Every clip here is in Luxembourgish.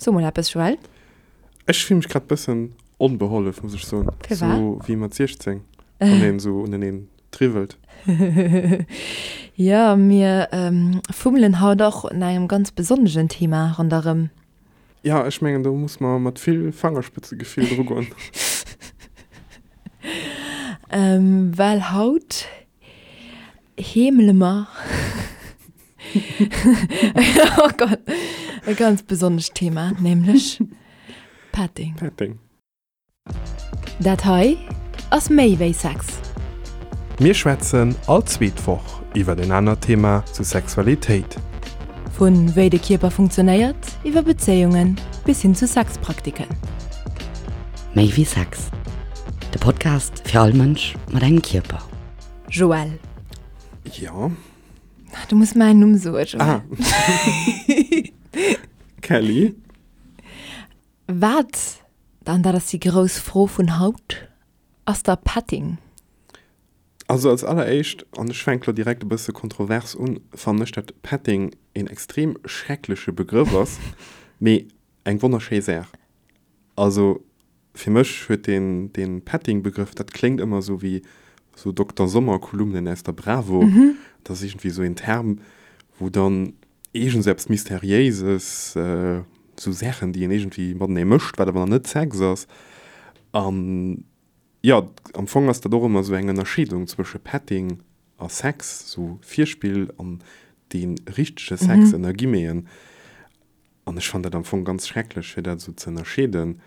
So mol eppes, Joël. Ech fill mech grad bëssen onbehollef, muss ech soen. Firwat? Sou wéi mat 16, wann een sou uneneen triwwelt. Jo, mir fummelen haut och un engem ganz besonnegen Thema ronderëm. Jo, ech mengen, do muss mer mat vill Fangerspëtzegefill drugoen. Well haut heemele mer oh Gott, e ganz besonnescht Thema, nämlech Petting. Petting. Dat hei ass méi wéi Sex. Mir schwätzen all zweet Woch iwwer en anert Thema zu Sexualitéit. Vu wéi de Kierper funktionéiert, iwwer Bezéiungen bis hin zu Sexpraktiken. Méi wéi Sex, de Podcast fir all Mënsch mat engem Kierper. Joël. Jo. Du muss mäin Numm soen, Joël. Ah. Kelly. Wat, an dat ass déi grouss Fro vun haut, ass da Petting? Also als alleréischt, an ech fänke lo direkt e bësse kontrovers un, fannen ech dat Petting een extrem schreckleche Begrëff ass, mee eng wonnerschéi Saach. Also fir mech huet deen, deen Petting-Begrëff, dat kléngt ëmmer esou wéi esou Dokter Sommer-Kolumnen aus der Bravo. Dat ass iergendwéi esou een Term, wou dann iergends eppes Mysteriéises, esou Saachen, déi een iergendwéi matenee mécht, wat awer nach net Sex ass. An jo, am Fong ass dat och ëmmer esou eng Ënnerscheedung zwësche Petting a Sex, esou Virspill an dee richtege Sex ënner Guillemeten. An ech fannen dat am Fong ganz schrecklech, fir dat esou ze ënnerscheeden.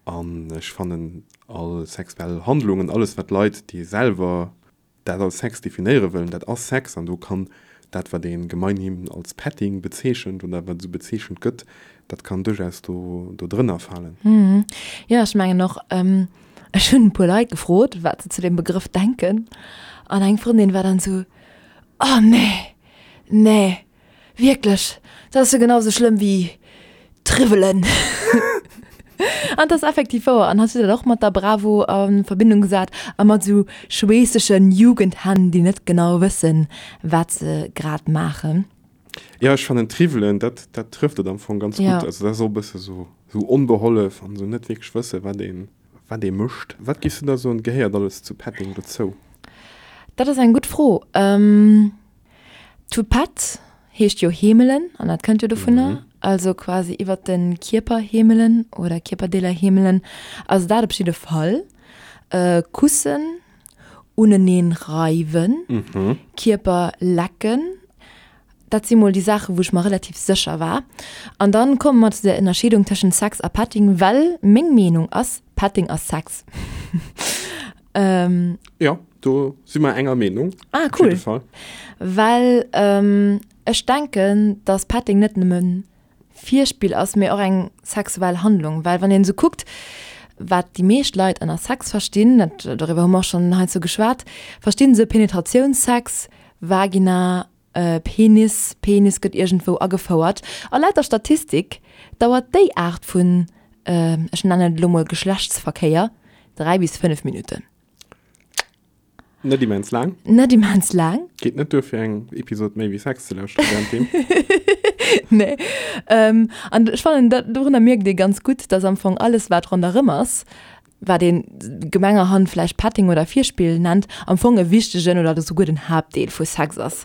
An ech fannen all sexuell Handlungen, alles wat Leit, déi selwer dat als Sex definéiere wëllen, dat ass Sex an do kann dat, wat ee gemeinhin als Petting bezeechent oder wat esou bezeechent gëtt, dat kann duerchaus do do drënner falen. Jo, ech mengen och. Ech hunn e puer Leit gefrot, wat se zu deem Begrëff denken an eng Frëndin war dann esou, Oh nee, nee. Wierklech, dat ass jo genau sou schlëmm wéi Triwwelen. An dat ass effektiv wouer. An hatt huet dat och mat der Bravo a Verbindung gesat a mat sou schweessegen Jugendhänn, déi net genau wëssen, wat se grad maachen. Jo, ech fannen Triwwelen, dat, dat trëfft et am Fong ganz gutt. Also dat ass och e bësse sou, sou onbehollef an sou net wierklech wëssen, wat een, wat ee mécht. Wat giffs du da soen, gehéiert alles zu Petting dozou? Dat ass eng gutt Fro. To pet heescht jo heemelen an dat kënnt jo dovunner, also quasi iwwert de Kierper heemelen oder Kierperdeeler heemelen. Also dat op jidde Fall. Kussen, uneneen reiwen, Kierper lecken, dat si mol déi Saachen, wou ech mer relativ sécher war. An dann komme mer zu der Ënnerscheedung tëschent Sex a Petting, well meng Meenung ass, Petting ass Sex. Ähm, ja, do si mer enger Meenung. Ah, cool. Well ähm, ech denken, dass Petting net nëmmen Virspill ass, mee och eng sexuell Handlung. Well wann een esou kuckt, wat déi meescht Leit ënner Sex verstinn, dat, doriwwer hu mer och schonn heiansdo geschwat, verstinn se Penetratiounssex, Vagina, Penis, Penis gëtt iergendwou agefouert. A laut der Statistik dauert déi Aart vun, ech nennen et elo mol Geschlechtsverkéier, 3 bis 5 Minutten. Net immens laang. Net immens laang. Geet net duer fir eng Episod méi wéi Sex ze lauschteren während deem. Nee. An ech fannen, dat, dorunner mierkt ee ganz gutt, dass am Fong alles wat ronderëm ass, wat ee gemengerhand vläicht Petting oder Virspill nennt, am Fong e wichtegen oder souguer den Haaptdeel vu Sex ass.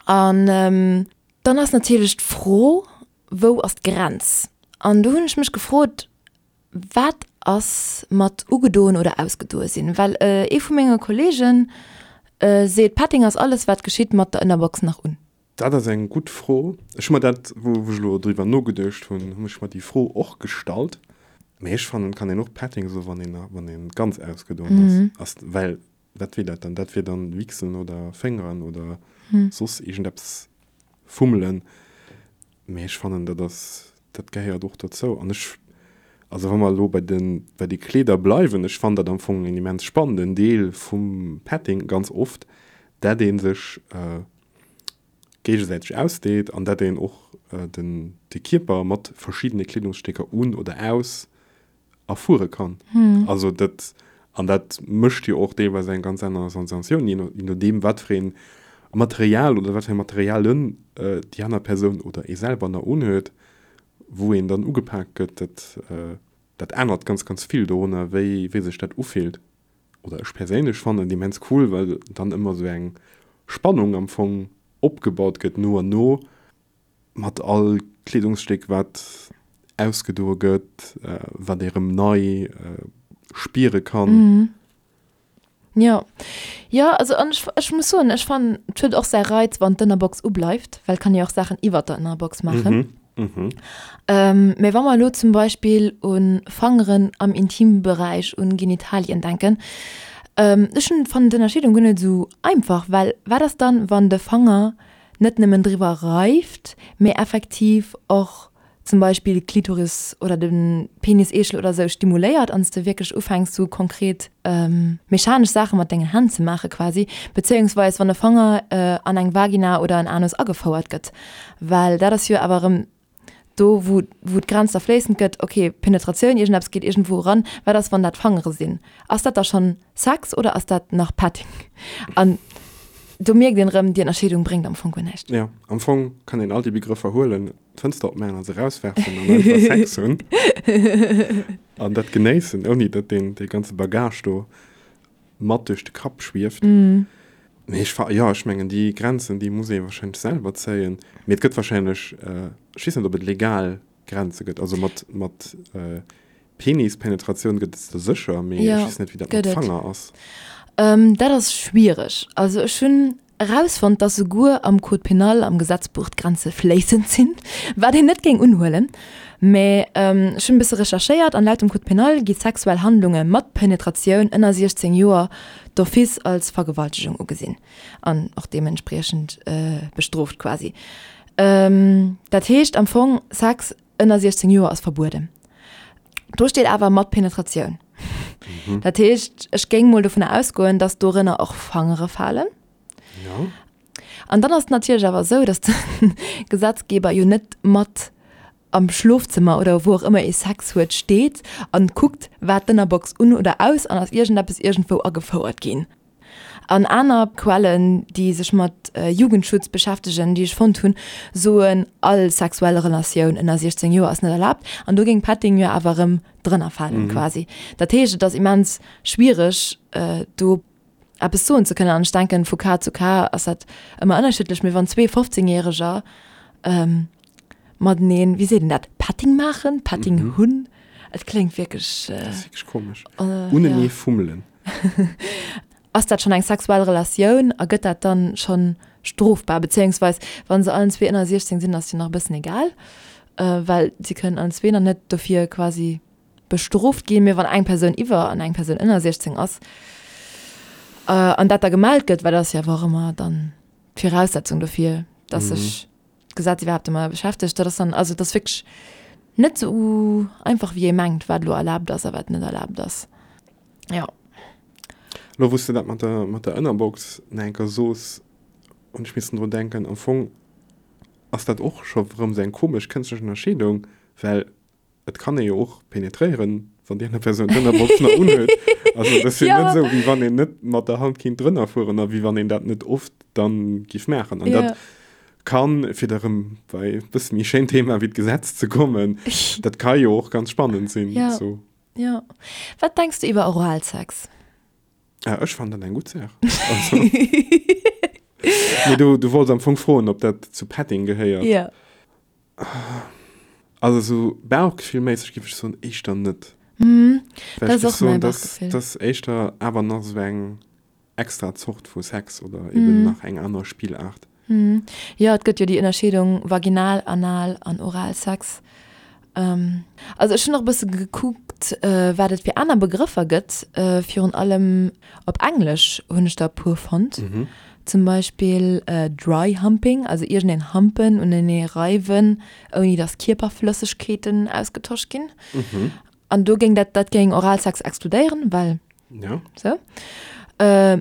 An dann ass natierlech d'Fro, Wou ass d'Grenz? An do hunn ech mech gefrot, Wat ass mat ugedoen oder ausgedoe sinn? Well ee vu menge Kolleege seet, Petting ass alles, wat geschitt mat der Ënnerbox nach un. Dat ass eng gutt Fro. Ech hu mer dat, wou ech elo driwwer nogeduecht hunn, hunn ech mer déi Fro och gestallt. Mee ech fannen, et kann een och Petting soen, wann een, wann een ganz ausgedoen ass. Well wat wier dat dann? Dat wier dann Wichsen oder Féngeren oder soss iergendeppes fummelen. Mee ech fannen, dat ass, dat gehéiert och dozou. An ech, also wa mer elo bei de, bei de Kleeder bleiwen, ech fannen dat am Fong en immens spannenden Deel vum Petting ganz oft, dat ee sech géigesäiteg ausdeet an dat een och den, de Kierper mat verschiddene Kleedungsstécker un oder aus erfuere kann. Also dat, an dat mécht jo och deelweis eng ganz aner Sensatioun, je no, je nodeem wat fir een Material oder wat fir Materialen déi aner Persoun oder ee selwer nach unhuet. wou een dann ugepak gëtt, dat, dat ännert ganz, ganz vill dorunner, wéi, wéi sech dat ufillt. Oder ech perséinlech fannen et immens cool, well dann ëmmer esou eng Spannung am Fong opgebaut gëtt no an no, mat all Kleedungsstéck wat ausgedoe gëtt, wat ee rëm nei spiere kann. Jo, jo, also an ech, ech muss soen, ech fannen, et huet och säi Reiz, wann d'Ënnerbox ubleift, well et kann ee jo och Saachen iwwert der Ënnerbox maachen. Mee wa mer elo zum Beispill u Fangeren am Intimberäich, un Genitalien denken, ech hunn, fannen d'Ënnerscheedung guer net esou einfach, well wat ass dann, wann de Fanger net nëmmen driwwer reift, mee effektiv och zum Beispill d'Klitoris oder de Peniseechel oder sou stimuléiert an s de wierklech ufänks sou konkret mechanesch Saache mat dengen Hänn ze maache quasi, bezéiungsweis wann e Fanger an eng Vagina oder en Anus agefouert gëtt, well dat ass jo awer erëm do wou wou d'Grenz da fléissend gëtt, ok Penetratioun, iergendeppes geet iergendwou eran, wat ass wann dat Fangere sinn, ass dat da schonn Sex oder ass dat nach Petting? An do mierkt een erëm, déi Ënnerscheedung bréngt am Fong guer näischt. Jo, am Fong kann een all déi Begrëffer huelen, d'Fënster opmaachen a se erauswerfen an einfach Sex hunn an dat genéissen, ouni datt deen dee ganze Bagage do mat duerch de Kapp schwieft. Mee ech fa, jo, ech mengen déi Grenzen, déi muss ee wahrscheinlech selwer zéien. Mee et gëtt wahrscheinlech, ech weess net, ob et legal Grenze gëtt. Also mat, mat Penispenetratioun gëtt et se sécher, mee ech weess net, wéi dat mat Fanger ass. Dat ass schwiereg. Also ech hunn Erausfonnt, dass souguer am Code pénal, am Gesetzbuch, d'Grenze fléissend sinn, wat een net géing unhuelen. Mä ech hunn e bësse recherchéiert an laut dem Code pénal gi sexuell Handlunge mat Penetratioun ënner 16 Joer d'office als Vergewaltegung ugesinn an och deementspriechend bestrooft quasi. Dat heescht am Fong, Sex ënner 16 Joer ass verbueden. Do steet awer mat Penetratioun. Mhm. Dat heescht, ech géing mol dovunner ausgoen, dass dorënner och Fangere falen. Ja. An dann ass et natierlech awer esou, dass de Gesetzgeber jo net mat am Schlofzëmmer oder wou och ëmmer ee Sex huet steet an kuckt, war d'Ënnerbox un oder aus an ass iergendeppes iergendwou agefouert ginn. An aner Quellen, déi sech mat Jugendschutz beschäftegen, déi ech fonnt hunn, soen, all sexuell Relatioun ënner 16 Joer ass net erlaabt. An do géing Petting jo awer erëm drënner falen quasi. Dat heescht, et ass immens schwiereg, do eppes soen ze kënnen. An ech denken, vu Cas zu Cas ass dat ëmmer ënnerschiddlech. Mee wann zwee 15 Järeger mateneen, wéi seet een dat, Petting maachen, Petting hunn, et kléngt wierklech. Dat ass wierklech komesch. Unenee fummelen. Ass dat schonn eng sexuell Relatioun a gëtt dat dann schonn strofbar? Bezéiungsweis, wa se allen zwee ënner 16 sinn, ass jo nach e bëssen egal, well si kënnen allen zwee nach net dofir quasi bestrooft ginn. Mee wann eng Persoun iwwer an eng Persoun ënner 16 ass an dat da gemellt gëtt, well dat ass jo awer och ëmmer dann d'Viraussetzung dofir, dass sech d'Gesetz iwwerhaapt domadder beschäftegt, dat ass dann, also et ass wierklech net esou einfach wéi ee mengt, wat elo erlaabt ass a wat net erlaabt ass. Jo. Elo wou s de dat mat der, mat der Ënnerbox nach eng Kéier soos, hunn ech missen drun denken, am Fong ass dat och scho erëm esou eng komesch kënschtlech Ënnerscheedung, well et kann ee jo och penetréieren, wann déi aner Persoun d'Ënnerbox nach unhuet. Also dat ass jo net esou, wéi wann een net mat der Hand kinnt drënner fueren a wéi wann een dat net oft dann giff maachen. An dat kann, fir da erëm bei e bësse méi schéin Thema wéi d'Gesetz ze kommen, dat ka jo och ganz spannend sinn. Jo. Jo. Wat denks du iwwer Oralsex? Ah, ech fannen dat eng gutt Saach. Also, mee du, du wollts am Fong froen, ob dat zu Petting gehéiert. Ja. Also sou bauchgefillméisseg géif ech soen, éischter net. Mhm. Well Dat ech ass géif och mäi soen, dass Bauchgefill. dass éischter awer nach sou eng extra Zort vu Sex oder eben nach eng aner Spillaart. Jo, et gëtt jo déi Ënnerscheedung vaginal, anal an oral Sex. Also ech hunn och e bësse gekuckt, wat et fir aner Begrëffer gëtt. Virun allem op Englesch hunn ech der e puer fonnt. Zum Beispill dry humping, also iergendeen humpen, unenee reiwen, ouni datt Kierperflëssegkeeten ausgetosch ginn. An do géing dat, dat géing Oralsex exkludéieren, well Ja. Sou.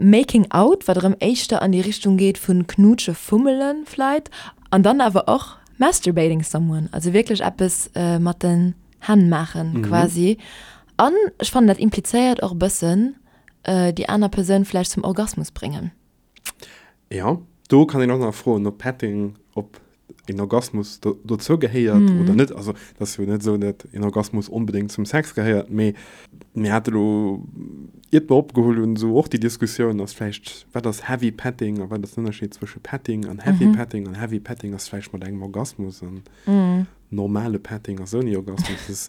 Making out, wat erëm éischter an déi Richtung geet vun knutsche, fummelen vläit. An dann awer och masturbating someone, also wierklech eppes mat den Hänn maachen quasi. An ech fannen dat implizéiert och e bëssen déi aner Persoun vläicht zum Orgasmus bréngen. Jo, do kann een och nach froen, ob Petting, ob. een Orgasmus do, dozou gehéiert mm. oder net. Also dat ass jo net esou, dat een Orgasmus onbedéngt zum Sex gehéiert, mee mir hate lo, iert mer opgeholl hunn, esou och déi Diskussioun, ass vläicht, wat ass Heavy Petting a wat ass den Ënnerscheed zwësche Petting an Heavy mm -hmm. Petting an Heavy Petting ass vläicht mat engem Orgasmus an mm. normale Petting ass ouni Orgasmus. Das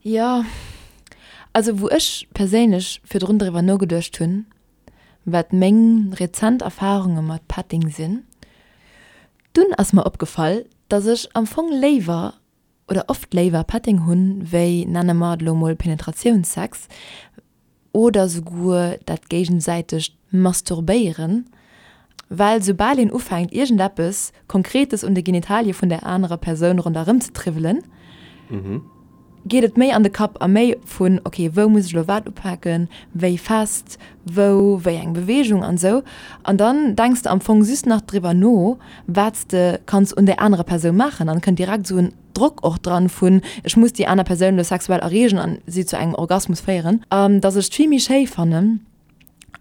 Ja, also wou ech perséinlech virdrun driwwer nogeduecht hunn, wat meng rezent Erfarunge mat Petting sinn, dunn ass mer opgefall, dass ech am Fong léiwer oder oft léiwer Petting hunn, wéi, nenne mer et elo mol Penetratiounssex oder souguer dat géigesäitegt Masturbéieren, well soubal een ufänkt iergendeppes Konkretes un de Genitalie vun der anerer Persoun ronderëm ze triwwelen, geet et méi an de Kapp a méi vun, ok, wou muss ech elo wat upaken, wéi fest, wou, wéi eng Beweegung an esou. An dann denks de am Fong just nach driwwer no, wat s de kanns un där anerer Persoun maachen an kënnt direkt esou en Drock och dran vun, ech muss déi aner Persoun elo sexuell erreegen an si zu engem Orgasmus féieren. An dass ech et vill méi schéi fannen,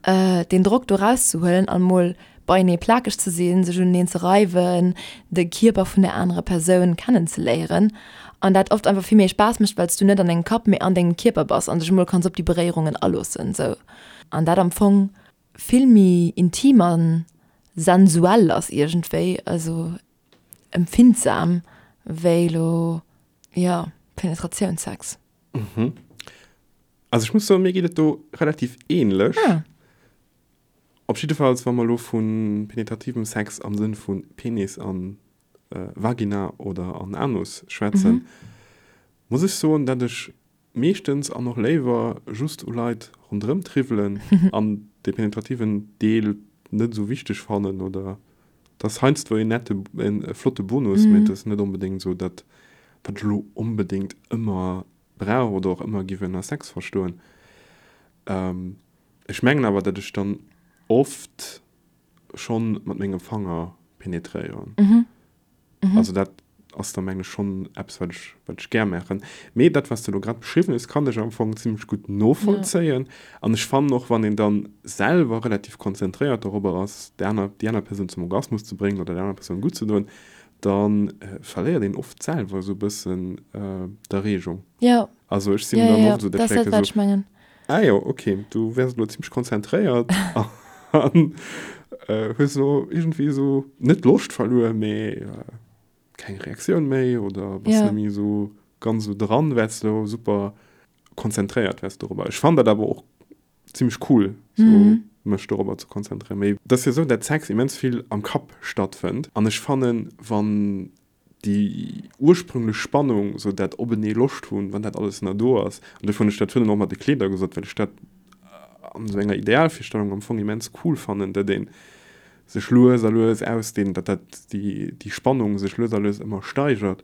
deen Drock do rauszehuelen an mol beienee plakeg ze sinn, sech uneneen ze reiwen, de Kierper vun der anerer Persoun kennenzeléieren an dat oft einfach vill méi Spaass mécht, well s du net an dengem Kapp, mee an dengem Kierper bass an dech emol kanns op déi Beréierungen aloossen sou an dat am Fong vill méi intim a sensuell ass iergendwéi, also empfindsam wéi elo, jo, Penetratiounssex. Also ech muss soen, mir geet et do relativ ähnlech. Ah. Op jiddefalls, wa mer elo vu penetrativem Sex am Sënn vu Penis an Vagina oder an Anus schwätzen, muss ech soen, dat ech meeschtens an och léiwer just u Leit ronderëm triwwelen an dee penetrativen Deel net esou wichteg fannen oder et ass heiansdo en nette, e flotte Bonus, mee et ass net onbedéngt esou dat, wat ech elo onbedéngt ëmmer brauch oder och ëmmer giff ënner Sex verstoen. Ech mengen awer, datt ech dann oft schonn mat mengem Fanger penetréieren. Mhm. Mhm. Also dat ass da mengen ech schonn eppes, wat ech, wat ech gär maachen. Mee dat, wat s de elo grad beschriwwen hues, kann ech am Fong zimmlech gutt novollzéien. Ja. An ech fannen och, wann een dann selwer relativ konzentréiert dorobber ass, déi aner, déi aner Persoun zum Orgasmus ze bréngen oder der aner Persoun gutt ze doen, da verléiert een oft selwer esou e bëssen d'Erreegung. Ja. Also ech sinn dann oft esou, dat ass dat, wat ech mengen. Ah jo, ok, du wäers elo zimmlech konzentréiert an hues elo iergendwéi esou net d'Loscht verluer, mee keng Reaktioun méi oder bass net méi esou ganz esou dran, well s de elo super konzentréiert wäers dorobber. Ech fannen dat awer och zimmlech cool, sou mech dorobber ze konzentréieren. Mee et ass jo esou, dat Sex immens vill am Kapp stattfënnt an ech fannen, wann déi ursprünglech Spannung, sou dat openee Loscht hunn, wann dat alles nach do ass, an dofir hunn ech dat virun och mat de Kleeder gesot, well ech dat an esou enger Idealvirstellung am Fong immens cool fannen, datt ee sech lues a lues ausdehnt, datt dat déi déi Spannung sech lues a lues ëmmer steigert,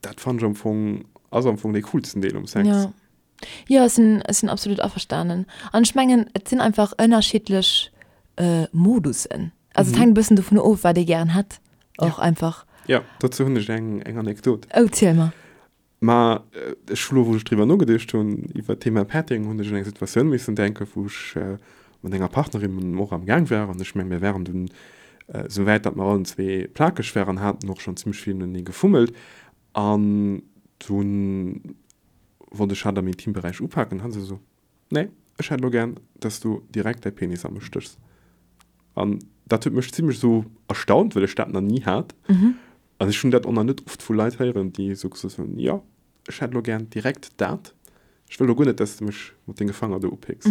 dat fannen ech am Fong, ass am Fong dee coolsten Deel um Sex. Jo, jo, ech sinn, ech sinn absolut averstanen. An ech mengen, et sinn einfach ënnerschiddlech Modussen. Also et hänkt e bëssen dovun of, wat ee gären hätt och einfach. Jo, dozou hunn ech eng, eng Anekdot. Oh, ziel mer. Ma ech hu lo, wou ech driwwer nogeduecht hunn, iwwer d'Thema Petting, hunn ech un eng Situatioun missen denken, wou ech mat enger Partnerin och am Gaang war. An ech meng, mir waren dunn esou wäit, datt mer allen zwee plakeg waren, haten och schonn zimmlech vill noenee gefummelt. An dunn wollt ech hatt am Intimberäich upaken, an hat se esou, Nee, ech hätt elo gär, dass du direkt däi Penis a mech stéchs. An dat huet mech zimmlech esou erstaunt, well ech dat nach ni hat. An ech hunn dat och nach net oft vu Leit héieren, déi esou gesot hunn, Jo, ech hätt elo gär direkt dat. Ech wëll elo guer net, dass de mech mat denge Fanger do upécks.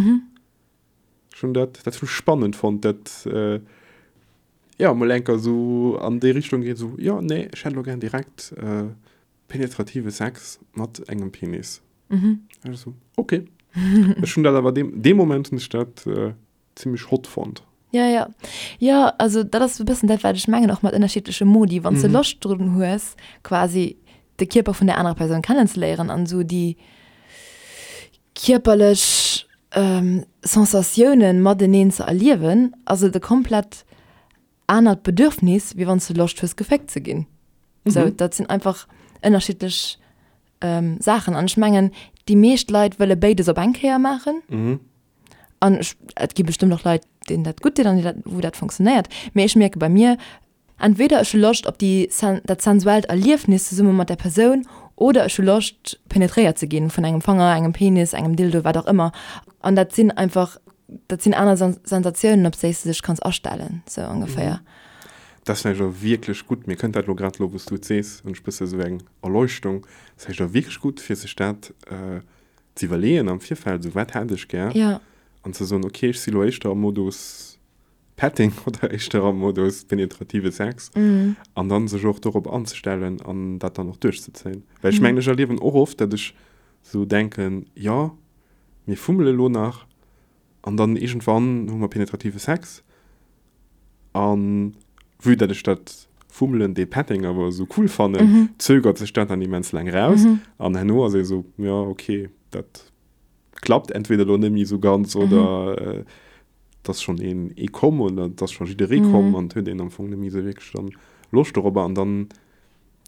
Ech hunn dat, dat hunn ech spannend fonnt, dat, jo, mol enker esou an déi Richtung geet, esou, Jo, nee, ech hätt elo gär direkt penetrative Sex mat engem Penis. Mhm. Also, okay. Ech hunn dat awer deem, dee Moment hunn ech dat äh, zimmlech hot fonnt. Ja, ja. Ja, also dat ass e bëssen dat, wat ech mengen, och mat ënnerschiddleche Modi. Wann s de mhm. Loscht drun hues, quasi de Kierper vun der anerer Persoun kennenzeléieren an esou déi kierperlech ähm, Sensatiounen mateneen ze erliewen, ass et e komplett anert Bedürfnis, wéi wann s de Loscht hues, geféckt ze ginn. Mhm. Sou, dat sinn einfach ënnerschiddlech ähm, Saachen. An ech mengen, déi meescht Leit wëlle béides op eng Kéier maachen. Mhm. An ech, et gi bestëmmt och Leit, deenen dat gutt deet an déi dat, wou dat funktionéiert. Mee ech mierke bei mir, Entweder ech hu Loscht op déi dat sensuellt Erliefnis zesumme mat der Persoun oder ech hu Loscht penetréiert ze ginn vun engem Fanger, engem Penis, engem Dildo, wat och ëmmer. An dat sinn einfach, dat sinn aner Sensatiounen, op déi s de dech kanns astellen, sou ongeféier. Dat ass vläicht och wierklech gutt, mir kënnt dat elo grad elo wou s du et sees, hunn ech bësse sou eng Erleuchtung, ass vläicht och wierklech gutt fir sech dat ze iwwerleeën am Virfeld, sou wat hätt ech gär an ze soen, ok ech si lo éischter am Modus Petting oder éischter am Modus penetrative Sex an dann sech och dorop anzestellen an dat dann och duerchzezéien. Well ech mengen, ech erliewen och oft, datt ech sou denken, jo mir fummele lo nach an dann iergendwann hu mer penetrative Sex an vue datt ech dat Fummelen, dee Petting awer esou cool fannen, zögert sech dat dann immens laang raus an herno ass ee sou, jo ok dat klappt entweder lo net méi esou ganz oder et ass schonn een ee komm oder et ass scho jidderee komm an et huet een am Fong net méi esou wierklech dann Loscht dorobber an dann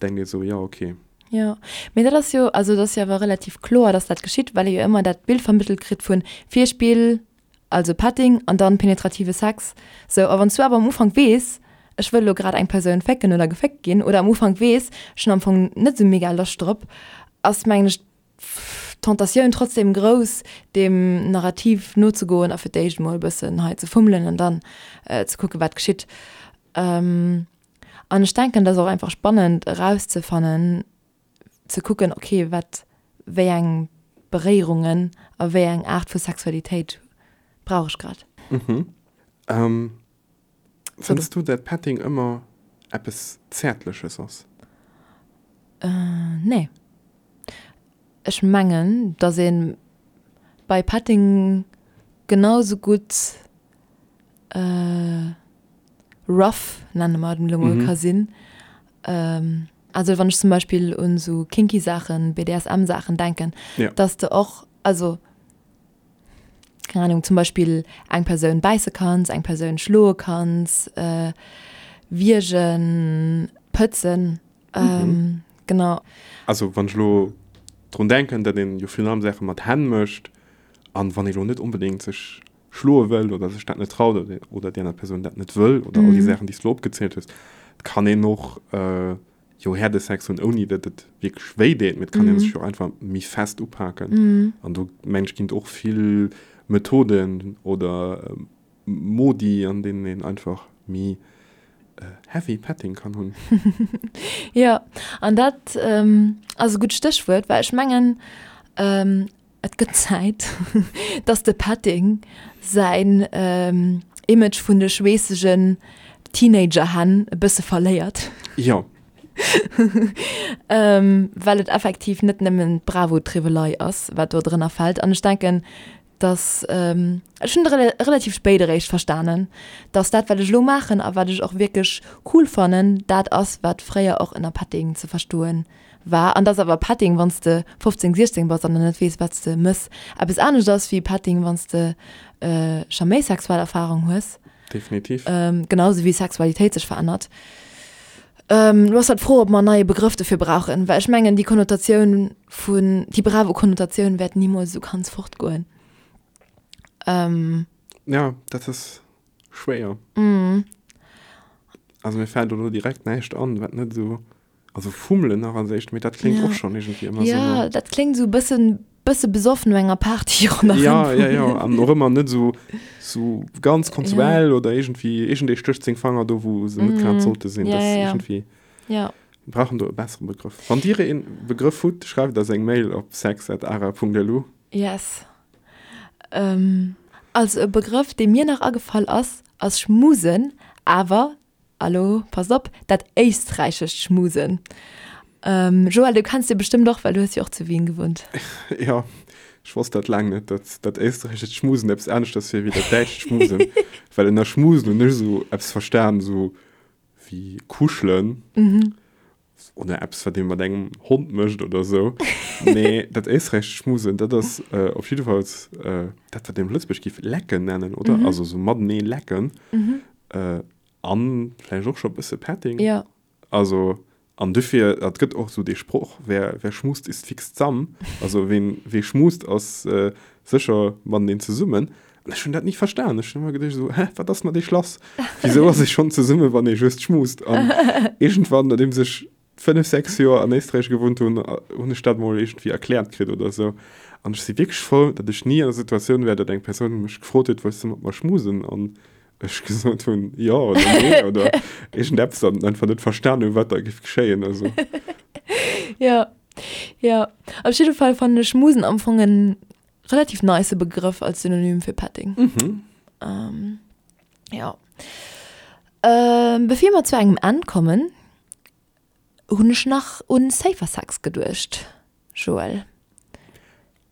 denkt ee sou, jo ok. Jo, mee dat ass jo, also et ass jo awer relativ kloer, dass dat geschitt, well ee jo ëmmer dat Bild vermëttelt kritt vun Virspill, also Petting an dann penetrative Sex. Sou, a wann s du awer am Ufank weess, ech wëll elo grad eng Persoun fécken oder geféckt ginn oder am Ufank weess, ech hunn am Fong net esou mega Loscht drop, ass mengen ech d'Tentatioun trotzdem grouss, deem Narrativ nozegoen a fir d'éischt emol e bëssen hei ze fummelen an dann ze kucken, wat geschitt. An ech denken, et ass och einfach spannend erauszefannen, ze kucken, okay, wat, wéi eng Beréierungen a wéi eng Aart vu Sexualitéit brauch ech grad. Fënns du dat Petting ëmmer eppes Zäertleches ass? Nee. Ech mengen, dass ee bei Petting genau sou gutt rough, nenne mer et elo mol, ka sinn. Also wann ech zum Beispill un sou kinky Saachen, BDSM-Saachen denken, dass de och, also keng Ahnung, zum Beispill eng Persoun bäisse kanns, eng Persoun schloe kanns, wiergen, pëtzen, genau. Also wann ech elo drun denken, datt een jo virun allem Saache mat Hänn mécht an wann ee lo net onbedéngt sech schloe wëll oder sech dat net traut oder déi aner Persoun dat net wëll oder all déi Saachen déi s du elo opgezielt hues, et kann een och jo Herdesex hunn, ouni datt et wierklech wéi deet, mee et kann ee sech jo einfach méi fest upaken. An do mengen ech ginn et och vill Methoden oder Modi, an deenen een einfach méi heavy Petting kann hunn. Jo, an dat ass e gutt Stéchwuert, well ech mengen, Et gëtt Zäit, dass de Petting säin Image vun de schweessegen Teenager-Hänn e bësse verléiert. Jo. Well et effektiv net nëmmen d'Bravo-Triwwelei ass, wat do drënner fält. An ech denken, dass, ech hunn et relativ spéit eréischt verstanen, dass dat, wat ech elo maachen a wat ech och wierklech cool fannen, dat ass, wat fréier och ënner Petting ze verstoen war. An dass awer Petting, wann s de 15, 16 bass an nach net weess, wat s de mëss, eppes anescht ass wéi Petting, wann s de scho méi sexuell Erfarung hues. Definitiv. Genau sou wéi Sexualitéit sech verännert. Lo ass halt d'Fro, ob mer en neie Begrëff dofir brauchen, well ech mengen, déi Konnotatioun vun, déi Bravo-Konnotatioun wäert nimools esou ganz fortgoen. Ja, dat ass schwéier. Also mir fält elo direkt näischt an, wat net esou Also fummelen nach als éischt, mee dat kléngt ja. och schon irgendwie ëmmer ja, so. Ja, dat kléngt so bëssen, bësse besoffen no enger Party ronderëm. Ja, ja, ja, an och ëmmer net so, so ganz konsuell ja. oder irgendwie, irgendee stécht seng Fanger do, wou se net grad mm. sollte sinn. Ja, das ja, ja. irgendwie. Ja. Wir brauchen do e bessere Begrëff. Wann Dir een Begrëff hutt, schreift eis eng Mail op sex@ara.lu. Yes. Ähm, also e Begrëff, dee mir nach agefall ass, ass Schmusen, awer Alo, passt op, dat éisträichescht Schmusen. Joël, du kenns dee bestëmmt och, well du hues jo och zu Wien gewunnt. Jo, ech wosst dat laang net, datt dat éisträichescht Schmusen eppes aneschters wier wéi dat däitscht Schmusen. Well ënner Schmusen hunn ech esou eppes verstan, esou wéi kuschelen oder eppes, wat ee mat engem Hond mécht oder esou. Mee dat éisträichescht Schmusen, dat ass op jiddefalls dat, wat een op Lëtzebuerg géif lecken nennen, oder? Also esou matenee lecken. An vläicht och scho bësse Petting. Ja. Also, an dofir, et gëtt och esou dee Sproch, wer, wer schmust, ist fix zamm. Also, ween, wee schmust, ass sécher mateneen zesummen. An ech hunn dat ni verstan. Ech hunn ëmmer geduecht esou, hä, wat ass mat iech lass? Wisou ass ee schonn zesumme wann ee just schmust? An iergendwann, nodeems ech 5, 6 Joer an Éisträich gewunnt hunn, hunn ech dat mol iergendwéi erkläert kritt oder esou. An ech si wierklech frou, datt ech ni an der Situatioun war, datt eng Persoun mech gefrot huet, wëlls du mat mer schmusen? An ech gesot hunn, jo oder nee oder iergendeppes an einfach net verstan hunn, wat da géif geschéien. Also. Jo, jo. Op jidde Fall fannen ech schmusen am Fong en relativ nice Begrëff als Synonym fir Petting. Mhm. Ähm, ja. Ähm, bevir mer zu engem Enn kommen, hunn ech nach un Safer Sex geduecht, Joël.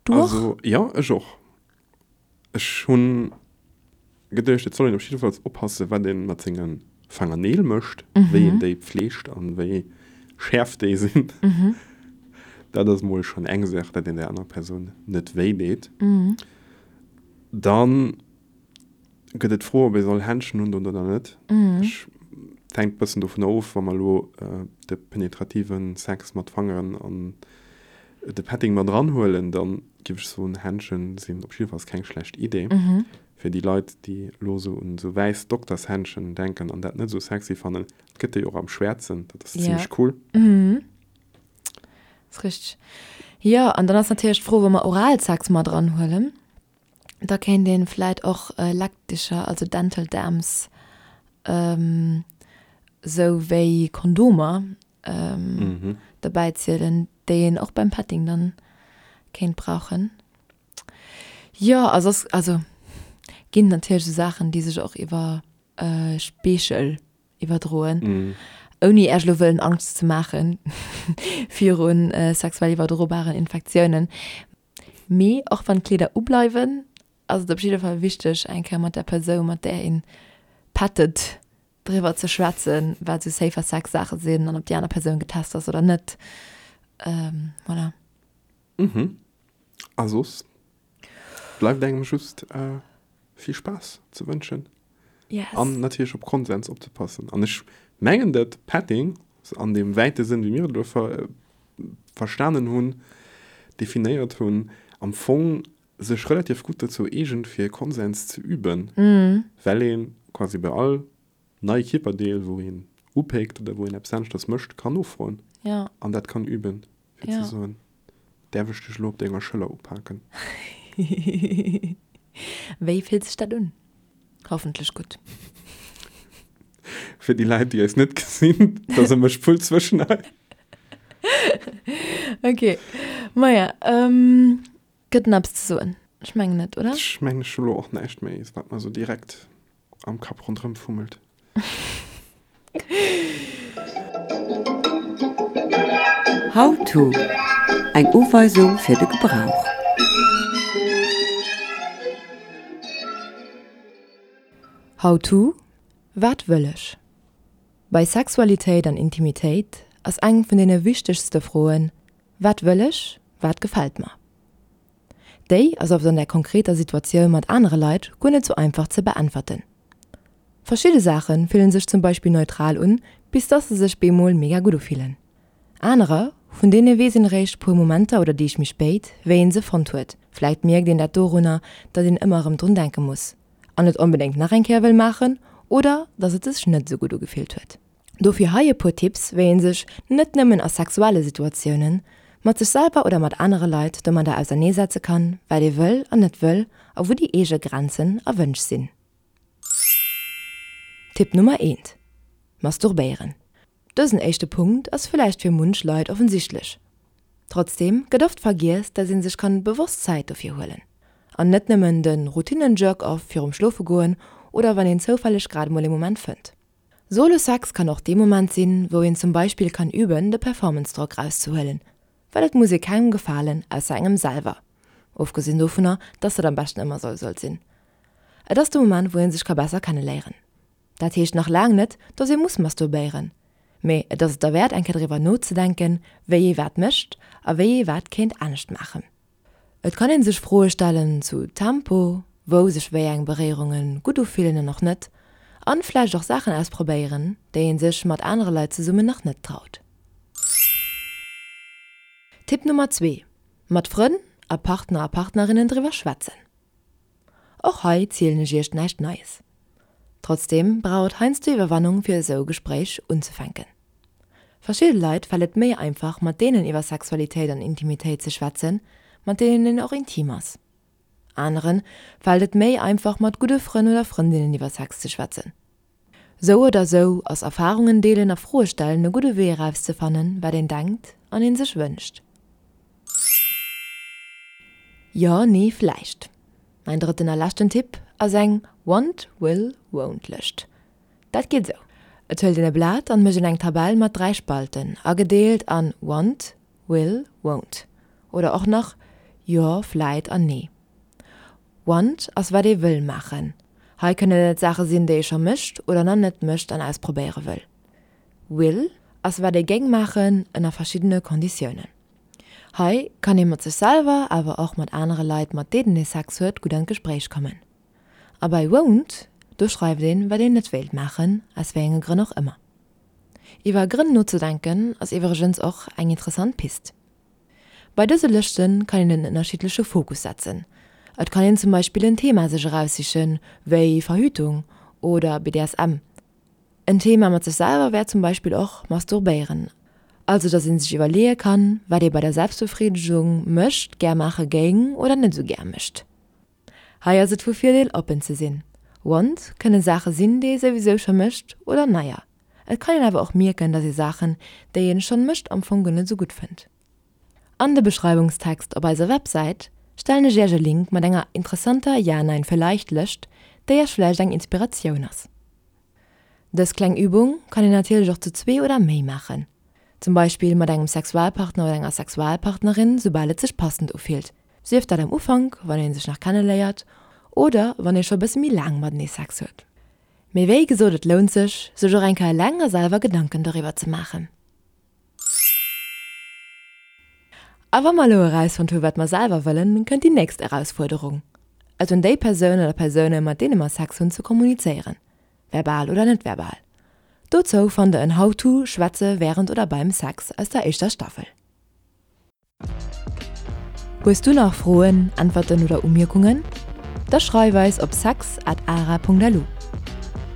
Du och? Also, ja, ech och. Ech hunn geduecht, et soll een op jiddefalls oppassen, wat een mat senge Fangerneel mécht, wéi een déi pfleegt an wéi schäerf déi sinn. Dat ass mol schonn eng Saach, dat een der anerer Persoun net wéi deet. Dann gëtt et d'Fro, ob ee soll Händschen undoen oder net. Ech, et hänkt e bëssen dovunner of, wa mer elo de penetrative Sex mat Fangeren an de Petting mat eranhuelen, da géif ech soen, Händschen sinn op jiddefalls keng schlecht Idee. Fir déi Leit, déi elo esou un esou wäiss Doktershändschen denken an dat net esou sexy fannen, et gëtt déi och am Schwäerzen, dat ass zimmlech cool. Ass richteg. Jo, an dann ass natierlech d'Fro, wa mer Oralsex mat eranhuelen, da kéint een vläit och Leckdicher, also Dental Dams, esou wéi Kondomer derbäi zielen, déi een och beim Petting dann kéint brauchen. Jo, a soss, also ginn natierlech esou Saachen, déi sech och iwwer Speechel iwwerdroen, ouni Iech elo wëllen Angscht ze maache viru sexuell iwwerdrobaren Infektiounen. Mee och wann d'Kleeder ubleiwen, ass et op jidde Fall wichteg, eng Kéier mat der Persoun, mat där een pettet, driwwer ze schwätzen, wat esou safer Sex Saache sinn an ob déi aner Persoun getest ass oder net. Voilà. Mhm. A soss bleift engem just vill Spaass ze wënschen. Yes. An natierlech op Konsens opzepassen. An ech mengen, dat Petting an deem wäite Sënn, wéi mir et elo ver verstanen hunn, definéiert hunn, am Fong sech relativ gutt dozou eegent, fir Konsens ze üben, well ee quasi bei all neie Kierperdeel, wou een upéckt oder wou een eppes aneschters mécht, kann nofroen. Ja. An dat kann üben, fir ze soen, Däerf ech dech elo op denger Schëller upaken? Wéi fillt sech dat un? Hoffentlech gutt. Fir déi Leit, déi eis net gesinn, da se mech voll zwëschen eis. Ok, maja, ähm, gëtt nach eppes ze soen? Ech mengen net, oder? Ech mengen, ech hu lo och näischt méi, wat mer sou direkt am Kapp ronderëm fummelt. How to, Eng Uweisung fir de Gebrauch. How to, Wat wëll ech? Bei Sexualitéit an Intimitéit ass eng vun deene wichtegste Froen, Wat wëll ech? Wat gefält mer? Déi ass oft an der konkreter Situatioun mat anere Leit guer net sou einfach ze beäntwerten. Verschidde Saache fillen sech zum Beispill neutral un, bis dass se sech bemol mega gutt ufillen. Anerer, vun deene weess een eréischt puer Momenter oder Deeg méi spéit, wéi een se fonnt huet. Vläit mierkt een dat dorunner, datt een ëmmer erëm drun denke muss an et onbedéngt nach eng Kéier wëll maachen oder datt et sech net sou gutt ugefillt huet. Dofir hei e puer Tipps, wéi een sech, net nëmmen a sexuelle Situatiounen, mat sech selwer oder mat anere Leit domadder auserneesetze kann, wat ee wëll an net wëll a wou déi eege Grenzen a Wënsch sinn. Tipp Nummer eent, Masturbéieren. Dësen éischte Punkt ass villäicht fir munch Leit offensichtlech. Trotzdeem gëtt oft vergiess, dass ee sech kann bewosst Zäit dofir huelen. An net nëmmen de Routinen-Jerk-off virum Schlofegoen oder wann een zoufälleg grad mol ee Moment fënnt. Solo Sex kann och dee Moment sinn, wou een zum Beispill kann üben, de Performance-Drock rauszehuelen, well et muss ee kengem gefalen, ausser engem selwer, ofgesinn dovunner, dass dat am beschten ëmmer sou sollt sinn. Et ass de Moment, wou een sech ka besser kenneléieren. Dat heescht nach laang net, dass ee muss masturbéieren, mee et ass et derwäert eng Kéier driwwer nozedenken, wéi ee wat mécht a wéi ee wat kéint anescht maachen. Et kann een sech Froe stellen zu Tempo, wou sech wéi eng Beréierunge gutt ufillen an och net, an vläicht och Saachen ausprobéieren, déi een sech mat anere Leit zesummen nach net traut. Tipp Nummer 2, Mat Frënn a Partner a Partnerinnen driwwer schwätzen. Och hei zielen ech iech näischt Neies. Trotzdeem brauch et heiansdo Iwwerwannung fir esou e Gespréich unzefänken. Verschidde Leit fält et méi einfach mat deenen iwwer Sexualitéit an Intimitéit ze schwätzen, mat deenen een och intim ass. Anere fält et méi einfach mat gudde Frënn oder Frëndinnen iwwer Sex ze schwätzen. Sou oder sou ass Erfarungen deelen a Froe stellen e gudde Wee erauszefannen, wat een denkt an een sech wënscht. Jo, nee, vläicht. Mäin drëtten a leschten Tipp ass eng Want, Will, Won't Lëscht. Dat geet esou, Et huelt een e Blat an mécht een eng Tabell mat 3 Spalten, agedeelt an Want, Will, Won't oder och nach Jo, Vläit an Nee. Want ass wat ee wëll maachen. Hei kënnen et Saache sinn, déi ee scho mécht oder nach net mécht an ausprobéiere wëll. Will ass wat ee géing maachen ënner verschiddene Konditiounen. Hei kann ee mat sech selwer, awer och mat anere Leit, mat deenen ee Sex huet, gutt an d'Gespréich kommen. A bei won't, do schreift een, wat een net wéilt maachen, aus wéi enge Grënn och ëmmer. Iwwer Grënn nozedenken ass iwwregens och eng interessant Pist. Bei dëse Lëschte kann een en ënnerschiddleche Fokus setzen. Et kann een zum Beispill en Thema sech eraussichen, wéi Verhütung oder BDSM. En Thema mat sech selwer wär zum Beispill och Masturbéieren, also dass ee sech iwwerleeë kann, wat ee bei der Selbstbefriidegung mécht, gär maache géing oder net esou gär mécht. Hei ass et vu Virdeel oppen ze sinn. Want kënne Saache sinn, déi ee souwisou scho mécht oder neier. Et kann een awer och mierken, dass ee Saachen, déi een schonn mécht am Fong guer net esou gutt fënnt. An de Beschreiwungstext op eiser Websäit stellen ech iech e Link mat enger interessanter Ja-Nein-Vielleicht-Lëscht, déi iech vläicht eng Inspiratioun ass. Dës kleng Übung kann een natierlech och zu zwee oder méi maachen. Zum Beispill mat engem Sexualpartner oder enger Sexualpartnerin, soubal et sech passend ufillt. Sief dat am Ufank, wann ee sech nach kenneléiert, oder wann ee scho bësse méi laang matenee Sex huet. Mee wéi gesot, et lount sech, sech och eng Kéier eleng a selwer Gedanken doriwwer ze maachen. A wa mer elo erausfonnt hu wat mer selwer wëllen, kënnt déi nächst Erausfuerderung, et un déi Persoun oder Persoune mat deene mer Sex hunn ze kommunizéieren, verbal oder net verbal. Dozou fannt der en How-to Schwätze wärend oder beim Sex aus der éischter Staffel. Hues du nach Froen, Äntwerten oder Umierkungen? Da schreif eis op sex at ara.lu.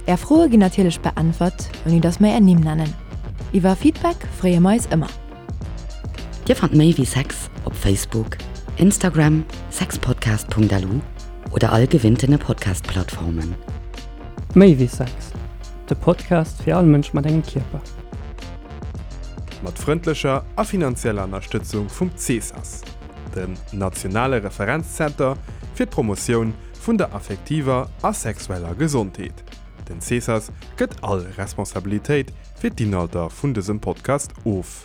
Är Froe ginn natierlech beäntwert, ouni dass mer är Nimm nennen. Iwwer Feedback freeë mer eis ëmmer. Dir fannt méi wéi Sex op Facebook, Instagram, sexpodcast.lu oder all gewinntene Podcast-Plattformen. Méi wéi Sex, de Podcast fir all Mënsch mat engem Kierper. Mat frëndlecher a finanzieller Ënnerstëtzung vum CESAS, dem nationale Referenzzenter fir d'Promotioun vun der affektiver a sexueller Gesondheet. Den CESAS gëtt all Responsabilitéit fir d'Inhalter vun dësem Podcast of.